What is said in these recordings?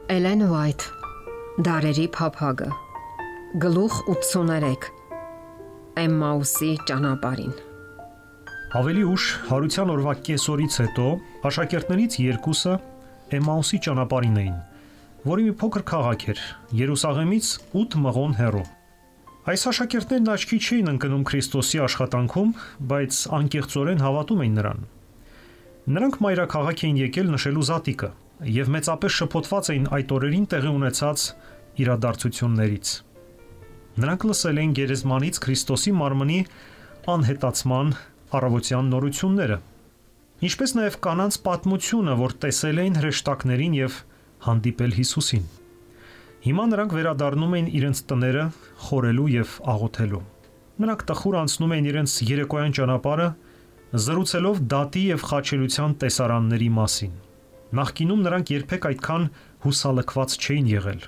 Էլեն Ուայթ, Դարերի փափագը, Գլուխ 83, Էմմաուսի ճանապարհին։ Ավելի ուշ հարության օրվա կեսօրից հետո աշակերտներից երկուսը Էմմաուսի ճանապարհին էին, որի մի փոքր քաղաք էր, Երուսաղեմից 8 մղոն հեռու։ Այս աշակերտներն աչքի չէին ընկնում Քրիստոսի աշխատանքում, բայց անկեղծորեն հավատում էին նրան։ Նրանք մայրաքաղաք էին եկել նշելու զատիկը և մեծապես շփոթված էին այդ օրերին տեղի ունեցած իրադարձություններից։ Նրանք լսել էին գերեզմանից Քրիստոսի մարմնի անհետացման առավոտյան նորությունները, ինչպես նաև կանանց պատմությունը, որ տեսել էին հրեշտակներին և հանդիպել Հիսուսին։ Հիմա նրանք վերադառնում էին իրենց տները խորելու և աղոթելու։ Նրանք տխուր անցնում էին իրենց երեկոյան ճանապարհը, զրուցելով դատի և խաչելության տեսարանների մասին։ Նախկինում նրանք երբեք այդքան հուսալքված չէին եղել։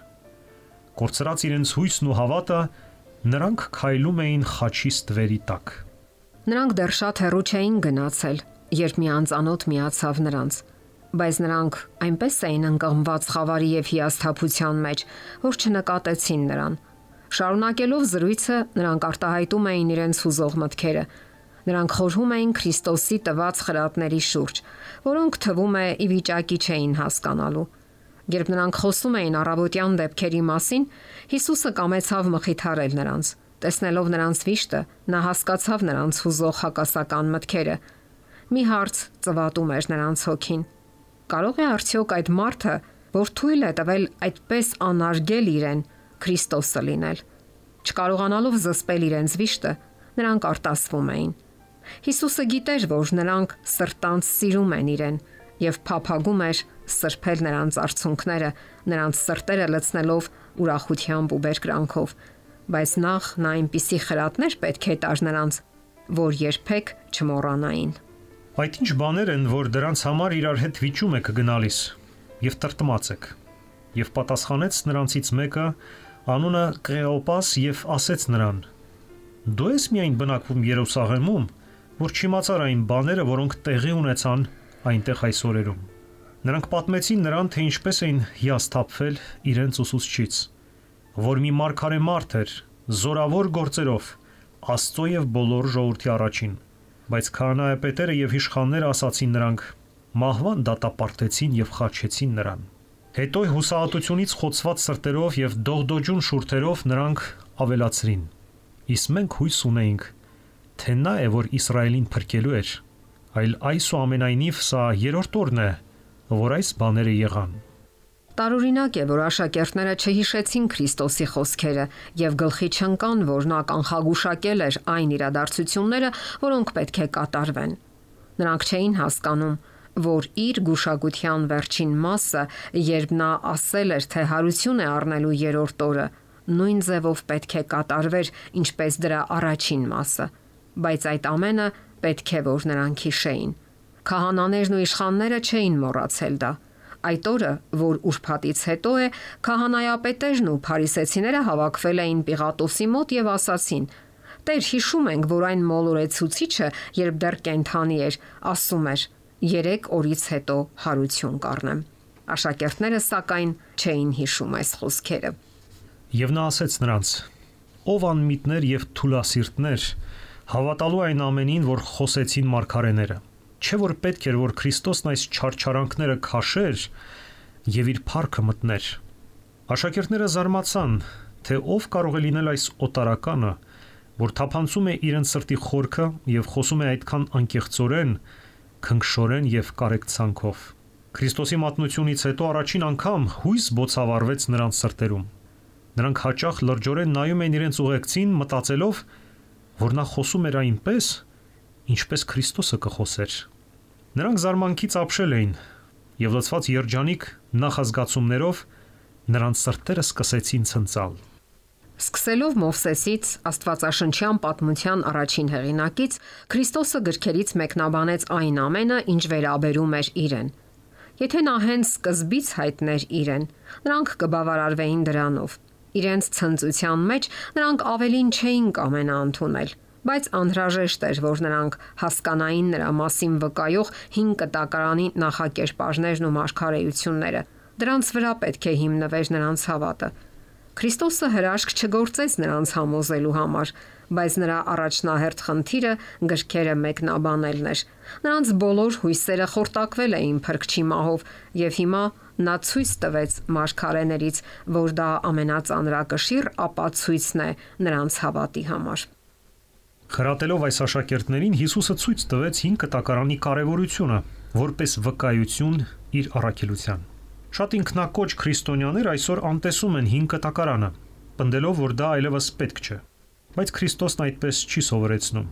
Կորցրած իրենց հույսն ու հավատը, նրանք քայլում էին խաչի ստվերի տակ։ Նրանք դեռ շատ հեռու չէին գնացել, երբ մի անծանոթ միացավ նրանց, բայց նրանք այնպես էին ընկղմված խավարի և հիասթափության մեջ, որ չնկատեցին նրան։ Շարունակելով զրույցը, նրանք արտահայտում էին իրենց հուզող մտքերը։ Նրանք խորհում էին Քրիստոսի տված խրատների շուրջ, որոնք թվում է ի վիճակի չէին հասկանալու։ Երբ նրանք խոսում էին առավոտյան դեպքերի մասին, Հիսուսը կամեցավ մխիթարել նրանց։ Տեսնելով նրանց վիշտը, նա հասկացավ նրանց հուզող հակասական մտքերը։ Մի հարց ծվատում էր նրանց հոգին. կարող է արդյոք այդ մարդը, որ թույլ է տվել այդպես անարգել իրեն, Քրիստոսը լինել։ Չկարողանալով զսպել իրենց վիշտը, նրանք արտասվում էին։ Հիսուսը գիտեր, որ նրանք սրտանց սիրում են իրեն և փափագում էր սրբել նրանց արցունքները, նրանց սրտերը լցնելով ուրախությամբ ու բերկրանքով, բայց նախ նա այնպիսի խրատներ պետք է տար նրանց, որ երբեք չմոռանային։ Այդ ինչ բաներ են, որ դրանց համար իրար հետ վիճում եք գնալիս և տրտմած եք։ Եվ պատասխանեց նրանցից մեկը, անունը Կղեոպաս, և ասեց նրան. դու ես միայն բնակվում Երուսաղեմում, որ չիմացար այն բաները, որոնք տեղի ունեցան այնտեղ այս օրերում։ Նրանք պատմեցին նրան, թե ինչպես էին հիասթափվել իրենց ուսուցչից, որ մի մարգարե մարդ էր, զորավոր գործերով, Աստծո և բոլոր ժողովրդի առաջին, բայց քահանայապետերը և իշխանները ասացին նրանք, մահվան դատապարտեցին և խաչեցին նրան։ Հետո հուսահատությունից խոցված սրտերով և դողդոջուն շուրթերով նրանք ավելացրին. իսկ մենք հույս ունեինք, թե նա է, որ Իսրայելին փրկելու էր, այլ այսուամենայնիվ սա երրորդ օրն է, որ այս բաները եղան։ Տարօրինակ է, որ աշակերտները չհիշեցին Քրիստոսի խոսքերը և գլխի չընկան, որ նա կանխագուշակել էր այն իրադարձությունները, որոնք պետք է կատարվեն։ Նրանք չէին հասկանում, որ իր գուշակության վերջին մասը, երբ նա ասել էր, թե հարություն է առնելու երրորդ օրը, նույն ձևով պետք է կատարվեր, ինչպես դրա առաջին մասը, բայց այդ ամենը պետք է, որ նրանք հիշեին։ Քահանաներն ու իշխանները չէին մոռացել դա։ Այդ օրը, որ ուրբաթից հետո է, քահանայապետերն ու փարիսեցիները հավաքվել էին Պիղատոսի մոտ և ասացին. «Տեր, հիշում ենք, որ այն մոլորեցուցիչը, երբ դեռ կենդանի էր, ասում էր. 3 օրից հետո հարություն կառնեմ»։ Աշակերտները սակայն չէին հիշում այս խոսքերը։ Եվ նա ասեց նրանց. «Ով անմիտներ և թուլասիրտներ, հավատալու այն ամենին, որ խոսեցին մարգարեները, չէ՞ որ պետք էր, որ Քրիստոսն այս չարչարանքները քաշեր և իր փառքը մտներ»։ Աշակերտները զարմացան, թե ով կարող է լինել այս օտարականը, որ թափանցում է իրենց սրտի խորքը և խոսում է այդքան անկեղծորեն, քնքշորեն և կարեկցանքով։ Քրիստոսի մատնությունից հետո առաջին անգամ հույս բոցավառվեց նրանց սրտերում։ Նրանք հաճախ լրջորեն նայում էին իրենց ուղեկցին, մտածելով, որ նա խոսում էր այնպես, ինչպես Քրիստոսը կխոսեր։ Նրանք զարմանքից ապշել էին և լցված երջանիկ նախազգացումներով նրանց սրտերը սկսեցին ցնծալ։ Սկսելով Մովսեսից, Աստվածաշնչյան պատմության առաջին հեղինակից, Քրիստոսը գրքերից մեկնաբանեց այն ամենը, ինչ վերաբերում էր իրեն։ Եթե նա հենց սկզբից հայտներ իրեն, նրանք կբավարարվեին դրանով։ Իրենց ցնծության մեջ նրանք ավելին չէին կամենա ընդունել, բայց անհրաժեշտ էր, որ նրանք հասկանային նրա մասին վկայող հին կտակարանի նախակերպարներն ու մարգարեությունները։ Դրանց վրա պետք է հիմնվեր նրանց հավատը։ Քրիստոսը հրաշք չգործեց նրանց համոզելու համար, բայց նրա առաջնահերթ խնդիրը գրքերը մեկնաբանելն էր։ Նրանց բոլոր հույսերը խորտակվել էին Փրկչի մահով, եւ հիմա նա ցույց տվեց մարգարեներից, որ դա ամենածանրակշիռ ապացույցն է նրանց հավատի համար։ Խրատելով այս աշակերտներին Հիսուսը ցույց տվեց 5 կտակարանի կարևորությունը որպես վկայություն իր առաքելության։ Շատ ինքնակոչ քրիստոնյաներ այսօր անտեսում են 5 կտակարանը, պնդելով, որ դա այլևս պետք չէ։ Բայց Քրիստոսն այդպես չի սովորեցնում։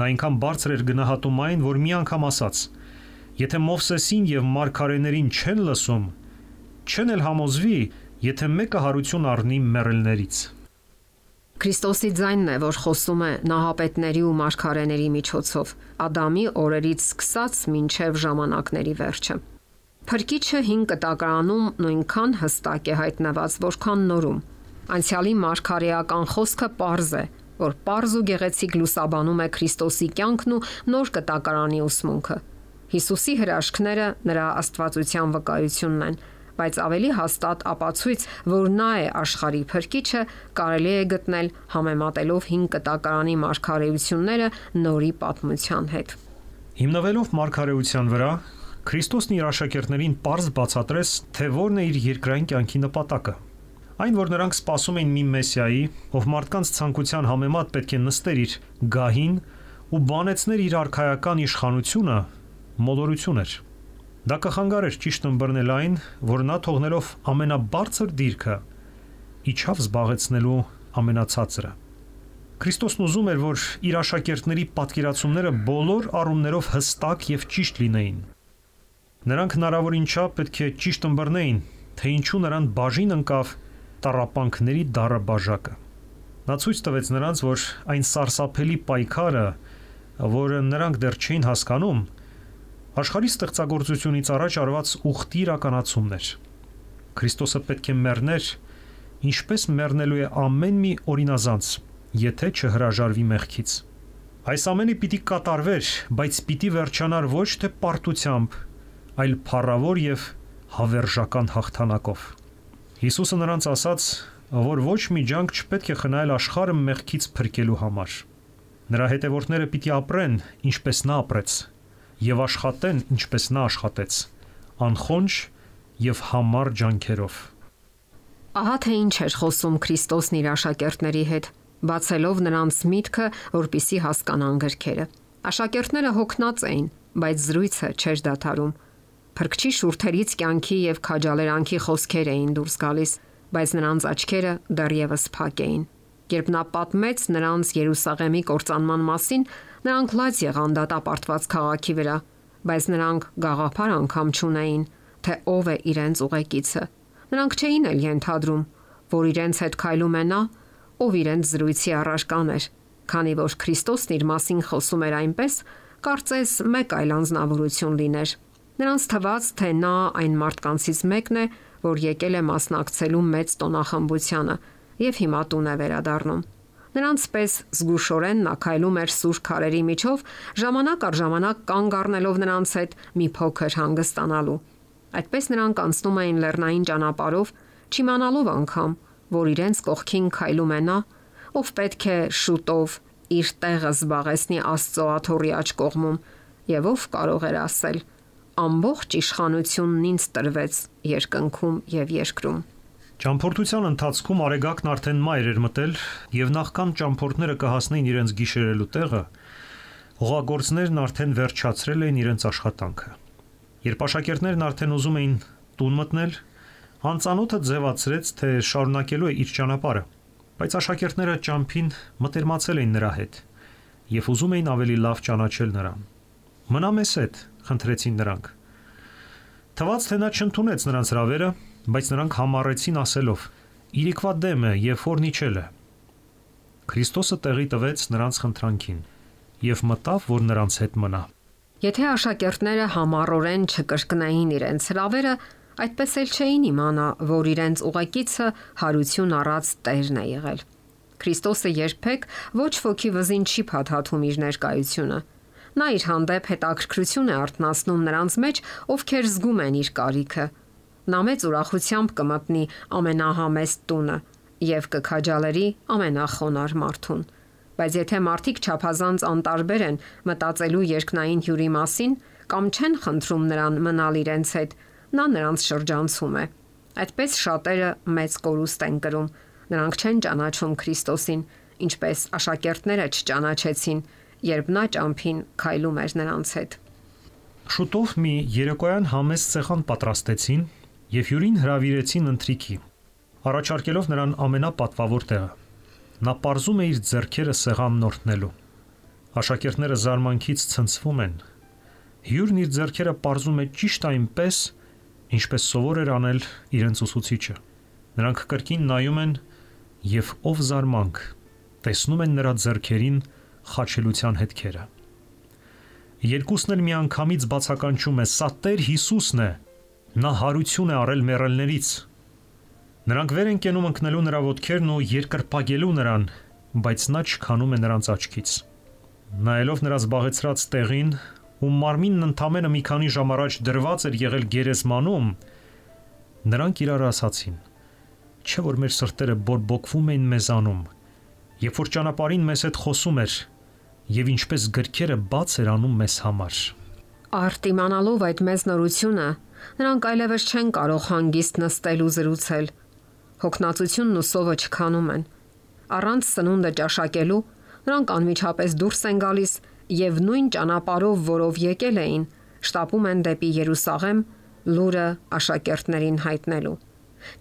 Նա այնքան բարձր էր գնահատում այն, որ մի անգամ ասաց. «Եթե Մովսեսին եւ մարգարեներին չեն լսում, չեն էլ համոզվի, եթե մեկը հարություն առնի մեռելներից»։ Քրիստոսի ձայնն է, որ խոսում է նահապետների ու մարգարեների միջոցով, Ադամի օրերից սկսած մինչև ժամանակների վերջը։ Փրկիչը 5 կտակարանում նույնքան հստակ է հայտնված, որքան նորում։ Անցյալի մարգարեական խոսքը պարզ է, որ պարզ ու գեղեցիկ լուսաբանում է Քրիստոսի կյանքն ու նոր կտակարանի ուսմունքը։ Հիսուսի հրաշքները նրա աստվածության վկայությունն են, բայց ավելի հաստատ ապացույց, որ նա է աշխարհի Փրկիչը, կարելի է գտնել համեմատելով 5 կտակարանի մարգարեությունները նորի պատմության հետ։ Հիմնվելով մարգարեության վրա, Քրիստոսն իր աշակերտներին պարզ բացատրեց, թե որն է իր երկրային կյանքի նպատակը։ Այն, որ նրանք սպասում էին մի մեսիայի, ով մարդկանց ցանկության համեմատ պետք է նստեր իր գահին ու բանեցներ իր արքայական իշխանությունը, մոլորություն էր։ Դա կխանգարեր ճիշտ ըմբռնել այն, որ նա թողնելով ամենաբարձր դիրքը, իջավ զբաղեցնելու ամենացածրը։ Քրիստոսն ուզում էր, որ իր աշակերտների պատկերացումները բոլոր առումներով հստակ եւ ճիշտ լինեին։ Նրանք հնարավորին չափ պետք է ճիշտ ըմբռնեին, թե ինչու նրան բաժին ընկավ տառապանքների դառը բաժակը։ Նա ցույց տվեց նրանց, որ այն սարսափելի պայքարը, որը նրանք դեռ չէին հասկանում, աշխարհի ստեղծագործությունից առաջ արված ուխտի իրականացումն էր։ Քրիստոսը պետք է մեռներ, ինչպես մեռնելու է ամեն մի օրինազանց, եթե չհրաժարվի մեղքից։ Այս ամենը պիտի կատարվեր, բայց պիտի վերջանար ոչ թե պարտությամբ, այլ փառավոր եւ հավերժական հաղթանակով։ Հիսուսը նրանց ասաց, որ ոչ մի ջանք չպետք է խնայել աշխարհը մեղքից փրկելու համար։ Նրա հետևորդները պիտի ապրեն, ինչպես նա ապրեց, եւ աշխատեն, ինչպես նա աշխատեց, անխոնջ եւ համառ ջանքերով։ Ահա թե ինչ էր խոսում Քրիստոսն իր աշակերտների հետ, բացելով նրանց միտքը, որպիսի հասկանան գրքերը։ Աշակերտները հոգնած էին, բայց զրույցը չէր դադարում։ Փրկչի շուրթերից կյանքի եւ քաջալերանքի խոսքեր էին դուրս գալիս, բայց նրանց աչքերը դեռևս փակ էին։ Երբ նա պատմեց նրանց Երուսաղեմի կործանման մասին, նրանք լաց եղան դատապարտված քաղաքի վրա, բայց նրանք գաղափար անգամ չունեին, թե ով է իրենց ուղեկիցը։ Նրանք չէին էլ ենթադրում, որ իրենց հետ քայլում է նա, ով իրենց զրույցի առարկան էր, քանի որ Քրիստոսն իր մասին խոսում էր այնպես, կարծես մեկ այլ անձնավորություն լիներ։ Նրանց թվաց, թե նա այն մարդկանցից մեկն է, որ եկել է մասնակցելու մեծ տոնախմբությանը եւ հիմա տուն է վերադառնում։ Նրանց պես զգուշորեն նա քայլում էր սուր քարերի միջով, ժամանակ առ ժամանակ կանգ առնելով նրանց հետ մի փոքր հանգստանալու։ Այդպես նրանք անցնում էին լեռնային ճանապարհով, չիմանալով անգամ, որ իրենց կողքին քայլում է նա, ով պետք է շուտով իր տեղը զբաղեցնի Աստծո աթոռի աջ կողմում, եւ ով կարող էր ասել. ամբողջ իշխանությունն ինձ տրվեց երկնքում եւ երկրում։ Ճամփորդության ընթացքում Արեգակն արդեն մայր էր մտել եւ նախքան ճամփորդները կհասնեին իրենց գիշերելու տեղը, հողագործներն արդեն վերջացրել էին իրենց աշխատանքը։ Երբ աշակերտներն արդեն ուզում էին տուն մտնել, անծանոթը ձևացրեց, թե շարունակելու է իր ճանապարհը, բայց աշակերտները ճամփին մտերմացել էին նրա հետ եւ ուզում էին ավելի լավ ճանաչել նրան։ Մնա մեզ հետ, խնդրեցին նրանք։ Թվաց, թե նա չընդունեց նրանց հրավերը, բայց նրանք համառեցին ասելով. «Իրիկվա դեմ է եւ ֆորնիչել է»։ Քրիստոսը տեղի տվեց նրանց խնդրանքին եւ մտավ, որ նրանց հետ մնա։ Եթե աշակերտները համառորեն չկրկնային իրենց հրավերը, այդպես էլ չէին իմանա, որ իրենց ուղեկիցը հարություն առած Տերն է եղել։ Քրիստոսը երբեք ոչ ոքի վզին չի փաթաթում իր ներկայությունը։ Նա իր հանդեպ հետաքրքրություն է արթնացնում նրանց մեջ, ովքեր զգում են իր կարիքը։ Նա մեծ ուրախությամբ կմտնի ամենահամեստ տունը եւ կքաջալերի ամենախոնար մարդուն։ Բայց եթե մարդիկ չափազանց անտարբեր են մտածելու երկնային հյուրի մասին կամ չեն խնդրում նրան մնալ իրենց հետ, նա նրանց շրջանցում է։ Այդպես շատերը մեծ կորուստ են կրում։ Նրանք չեն ճանաչում Քրիստոսին, ինչպես աշակերտները չճանաչեցին, երբ նա ճամփին քայլում էր նրանց հետ։ Շուտով մի երեկոյան համեստ սեղան պատրաստեցին եւ հյուրին հրավիրեցին ընթրիքի, առաջարկելով նրան ամենապատվավոր տեղը։ Նա պարզում է իր ձեռքերը սեղանն օրհնելու։ Աշակերտները զարմանքից ցնցվում են։ Հյուրն իր ձեռքերը պարզում է ճիշտ այնպես, ինչպես սովոր էր անել իրենց ուսուցիչը։ Նրանք կրկին նայում են եւ ով զարմանք տեսնում են նրա ձեռքերին խաչելության հետքերը։ Երկուսն էլ միանգամից բացականչում է. «Սա Տեր Հիսուսն է, նա հարություն է առել մեռելներից»։ Նրանք վեր են կենում ընկնելու նրա ոտքերն ու երկրպագելու նրան, բայց նա չքանում է նրանց աչքից։ Նայելով նրա զբաղեցրած տեղին, ու մարմինն ընդամենը մի քանի ժամ առաջ դրված էր եղել գերեզմանում, նրանք իրար ասացին. «Չէ՞ որ մեր սրտերը բորբոքվում էին մեզանում, երբ որ ճանապարհին մեզ հետ խոսում էր, եւ ինչպես գրքերը բաց էր անում մեզ համար»։ Արդ իմանալով այդ մեծ նորությունը, նրանք այլևս չեն կարող հանգիստ նստել ու զրուցել։ Հոգնածությունն ու սովը չքանում են։ Առանց սնունդը ճաշակելու նրանք անմիջապես դուրս են գալիս եւ նույն ճանապարհով, որով եկել էին, շտապում են դեպի Երուսաղեմ լուրը աշակերտներին հայտնելու։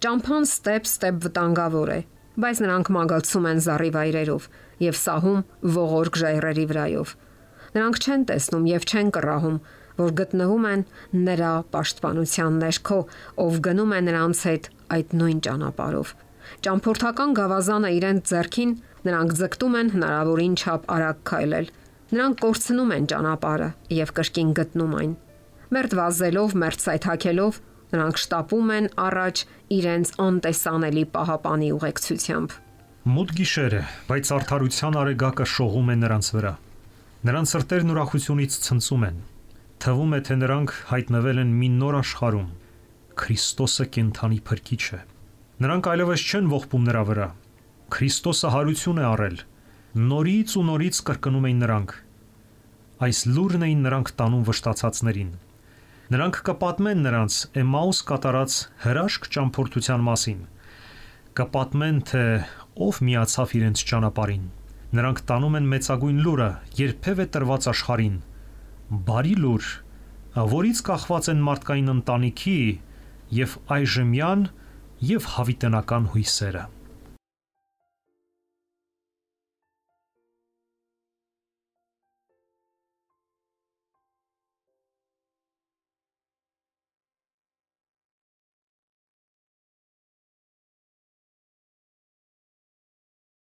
Ճամփան ստեպ վտանգավոր է, բայց նրանք մագլցում են զառիվայրերով եւ սահում ողորկ ժայռերի վրայով։ Նրանք չեն տեսնում եւ չեն կռահում, որ գտնվում են նրա պաշտպանության ներքո, ով գնում է նրանց հետ այդ նույն ճանապարհով։ Ճամփորդական գավազանը իրենց ձեռքին, նրանք ձգտում են հնարավորին չափ արագ քայլել։ Նրանք կորցնում են ճանապարհը եւ կրկին գտնում այն։ Մերթ վազելով, մերթ սայթաքելով, նրանք շտապում են առաջ իրենց անտեսանելի պահապանի ուղեկցությամբ։ Մութ գիշեր է, բայց արդարության արեգակը շողում է նրանց վրա։ Նրանց սրտերն ուրախությունից ցնծում են։ Թվում է, թե նրանք հայտնվել են մի նոր աշխարհում։ Քրիստոսը կենդանի փրկիչ է։ Նրանք այլևս չեն ողբում նրա վրա։ Քրիստոսը հարություն է առել։ Նորից ու նորից կրկնում էին նրանք։ Այս լուրն էին նրանք տանում վշտացածներին։ Նրանք կպատմեն նրանց Էմաուս կատարած հրաշք ճամփորդության մասին։ Կպատմեն, թե ով միացավ իրենց ճանապարհին։ Նրանք տանում են մեծագույն լուրը, երբևէ տրված աշխարհին։ Բարի լուր, որից կախված են մարդկային ընտանիքի եւ այժմյան եւ հավիտենական հույսերը։